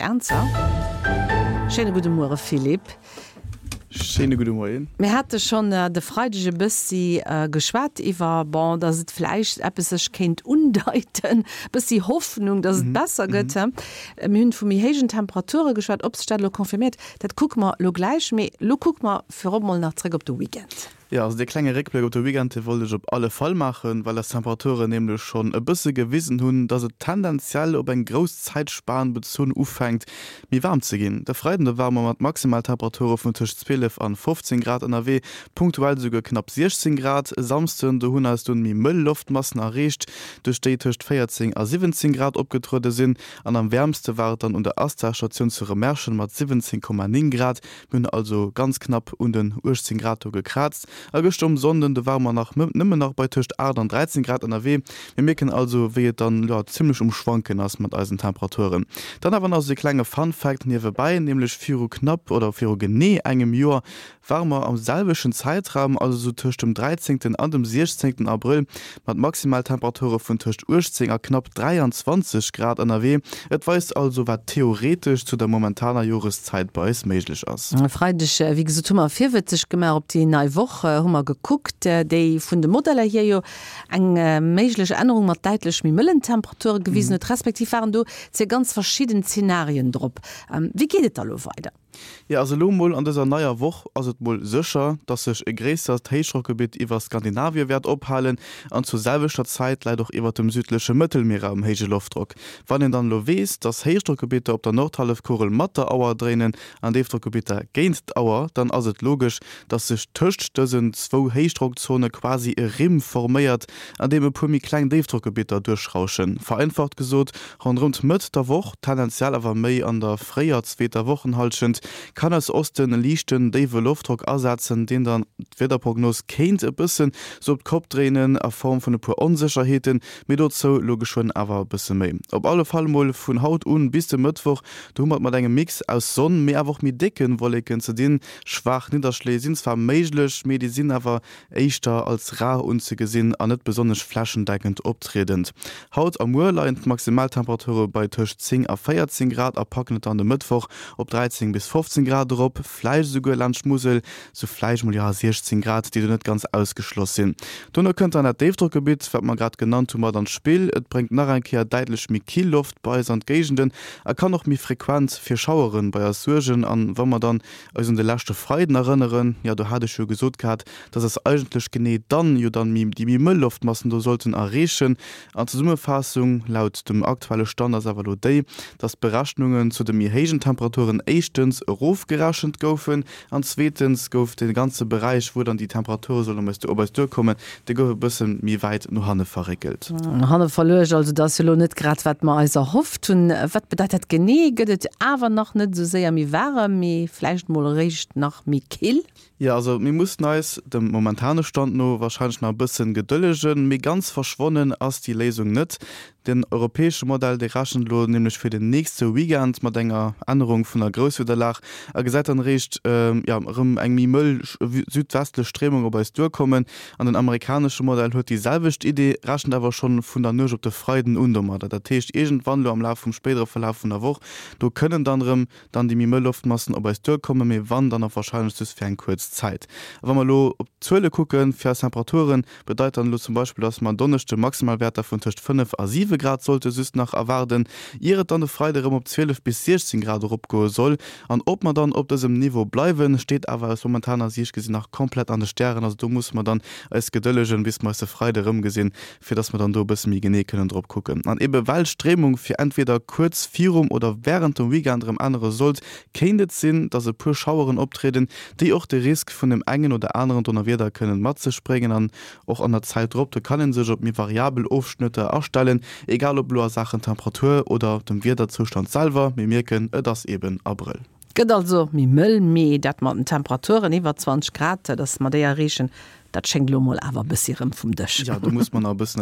Ernzer. Schéine gudde Muere Philippe. Schéine gudde Moien. Mir hate schonn de Freideg e bëssi geschwat iwwer, bon, datt et vläicht eppes sech kéint undeiten, e bëssi Hoffnung, datt et besser gëtt. Mir hunn vu méi héijen Temperature geschwat. Ob sech dat elo confirméiert, dat kucke mer elo gläich. Mee elo kucke mer virop mol nach zréck op de Weekend. Jo, also dee klenge Réckbléck op de Weekend, dee wollt ech op alle Fall maachen, well eis Temperaturen nämlech schonn e bësse gewisen hunn, dass et tendenziell op eng grouss Zäitspan bezunn ufänkt méi waarm ze ginn. De Freiden, do ware mer mat Maximaltemperature vun tëscht 12 an 15 Grad ënnerwee, punktuell esouguer knapp 16 Grad. E Samsden, do hunn eis dunn méi mëll Loftmassen erreecht, duerch déi tëscht 14 a 17 Grad opgetruede sinn. An am wäermste war et dann un der Astar-Statioun zu Remerschen mat 17,9 Grad. Mir hunn also ganz knapp un den 18 Grad do gekraazt. A gëschter um Sonnden, do ware mer nach nëmmen nach bei tëscht 8 an 13 Grad ënnerwee. Mir mierken also, wéi et dann, jo, zimmlech um Schwanken ass mat eisen Temperaturen. Dann awer nach esou e klenge Fun Fact niewebäi, nämlech viru knapp oder viru genee engem Joer ware mer am selwechten Zäitraum, also sou tëscht dem 13 an dem 16 Abrëll, mat Maximaltemperature vun tëscht 18 a knapp 23 Grad ënnerwee. Et weist also, wat theoretesch zu der momentaner Joreszäit bei eis méiglech ass. E Freideg, wéi gesot, hu mer virwëtzeg gemaach op déi nei Woch, hu mer gekuckt, déi vun de Modeller hier jo eng méiglech Ännerung mat däitlech méi mëllen Temperature gewisen huet, respektiv waren do zwee ganz verschidden Zenarien drop. Wéi geet et da lo weider? Jo, also elo mol an dëser neier Woch ass et mol sécher, dass sech e gréissert Héichdrockgebitt iwwer Skandinavie wäert ophalen an zur selwechter Zäit läit och iwwert dem südleche Mëttelmierraum héije Loftdrock. Wann een dann elo weess, dass Héichdrockgebitter op der Nordhallefkugel mat der Auer dréinen an Déifdrockgebitter géint d'Auer, dann ass et logesch, dass sech tëscht dësen zwou Héichdrockzone quasi e Rimm forméiert, an deem e puer méi kleng Déifdrockgebitter duerchrauschen. Vereinfacht gesot, Ronderëm d'Mëtt der Woch, tendenziell awer méi an der fréier zweeter Wochenhallschent, kann aus Osten e liichten déiwe Loftdrock asetzen, deen dann d'Wiederprognos kéint e bëssen sou op d'Kopp dréinen a Form vun e puer Onsécherheeten, mee dozou lo geschwënn awer e bësse méi. Op alle Fall mol vun haut un bis de Mëttwoch, do hu mer et mat engem Mix aus Sonn, mee awer och méi décke Wolleken ze dinn. Schwaach Nidderschléi sinn zwar méiglech, mee déi sinn awer éischter als rar unzegesinn a net besonnesch flächendeckend optriedend. Haut a muer leien d'Maximaltemperature bei tëscht 10 a 14 Grad a packen et dann de Mëttwoch op 13 bis 15 Grad erop, vläicht esouguer laanscht d'Musel sou vläicht mol, jo, 16 Grad, déi do net ganz ausgeschloss sinn. Dono kënnt dann dat Déifdrockgebitt, wat mer grad genannt hu, mat an d'Spill. Et bréngt nach eng Kéier däitlech méi kill Loft bei eis an d'Géigenden a kann och méi frequent fir Schauere bei eis suergen. An wa mer dann eis un de leschte Freiden erënneren, jo do hat ech jo gesot gehat, dass eis eigentlech genee dann jo dann méi déi méi mëll Loftmassen do sollten erreechen. An d'Zesummefaassung laut dem aktuelle Stand ass awer elo déi, dass d'Berechnungen zu de méi héijen Temperaturen éischtens erofgerechent goufen an zweetens gouf de ganze Beräich, wou dann déi Temperature sollen op eis duerkommen, dee gouf e bësse méi wäit no hanne verréckelt. No hanne verluecht also, dat ass jo elo net grad wat mer eis erhofft hunn. Wat bedeit dat genee? Gëtt et awer nach net esou séier méi waarem, mee vläicht mol eréischt nach méi kill? Jo, also mir mussen eis, dem momentane Stand no, warscheinlech nach e bëssen gedëllegen, mee ganz verschwonnen ass déi Léisung net. Den europäesche Modell, dee rechent elo nämlech fir den nächste Weekend mat enger Ännerung vun der Grousswiederlag a gesäit dann eréischt, jo, erëm eng méi mëll südwestlech Stréimung op eis duerkommen. An den amerikanesche Modell huet déi selwecht Idee, rechent awer schonn vun der Nuecht op de Freiden un domadder. Dat heescht, iergendwann elo am Laf vum spéidere Verlaf vun der Woch, do kënnen dann erëm dann déi méi mëll Loftmassen op eis duerkommen, mee wann, dann och warscheinlech just fir eng kuerz Zäit. A wa mer elo op d'Zuele kucken, fir eis Temperaturen, bedeit dann elo zum Beispill, dass mer en Donneschde Maximalwäerter vun tëscht 5 a 7 Grad sollte just nach erwaarden, ier et dann de Freide erëm op 12 bis 16 Grad eropgoe soll. An ob mer dann op dësem Niveau bleiwen, steet awer aus momentaner Siicht gesinn nach komplett an de Stären. Also do musse mer dann eis gedëllegen, bis mer eis de Freide erëmgesinn, fir dass mer dann do e bësse méi genee kënnen drop kucken. An ebe well d'Stréimung fir entweder kuerz virum oder wärend dem Weekend erëm ännere sollt, kéint et sinn, dass e puer Schaueren optrieden, déi och de Risk vun dem engen oder aneren Donnerwieder kënnen mat sech bréngen. An och an der Zäit drop, do kann ee sech op méi variabel Ofschnëtter astellen, egal ob elo a Saachen Temperatur oder dem Wiederzoustand selwer. Mir mierken, et ass eben Abrëll. Gëtt also méi mëll, mee dat mat den Temperaturen iwwer 20 Grad, dass mer déi erreechen, dat schéngt elo mol awer e bëssi rëm vum Dësch. Jo, do muss mer nach e bëssen.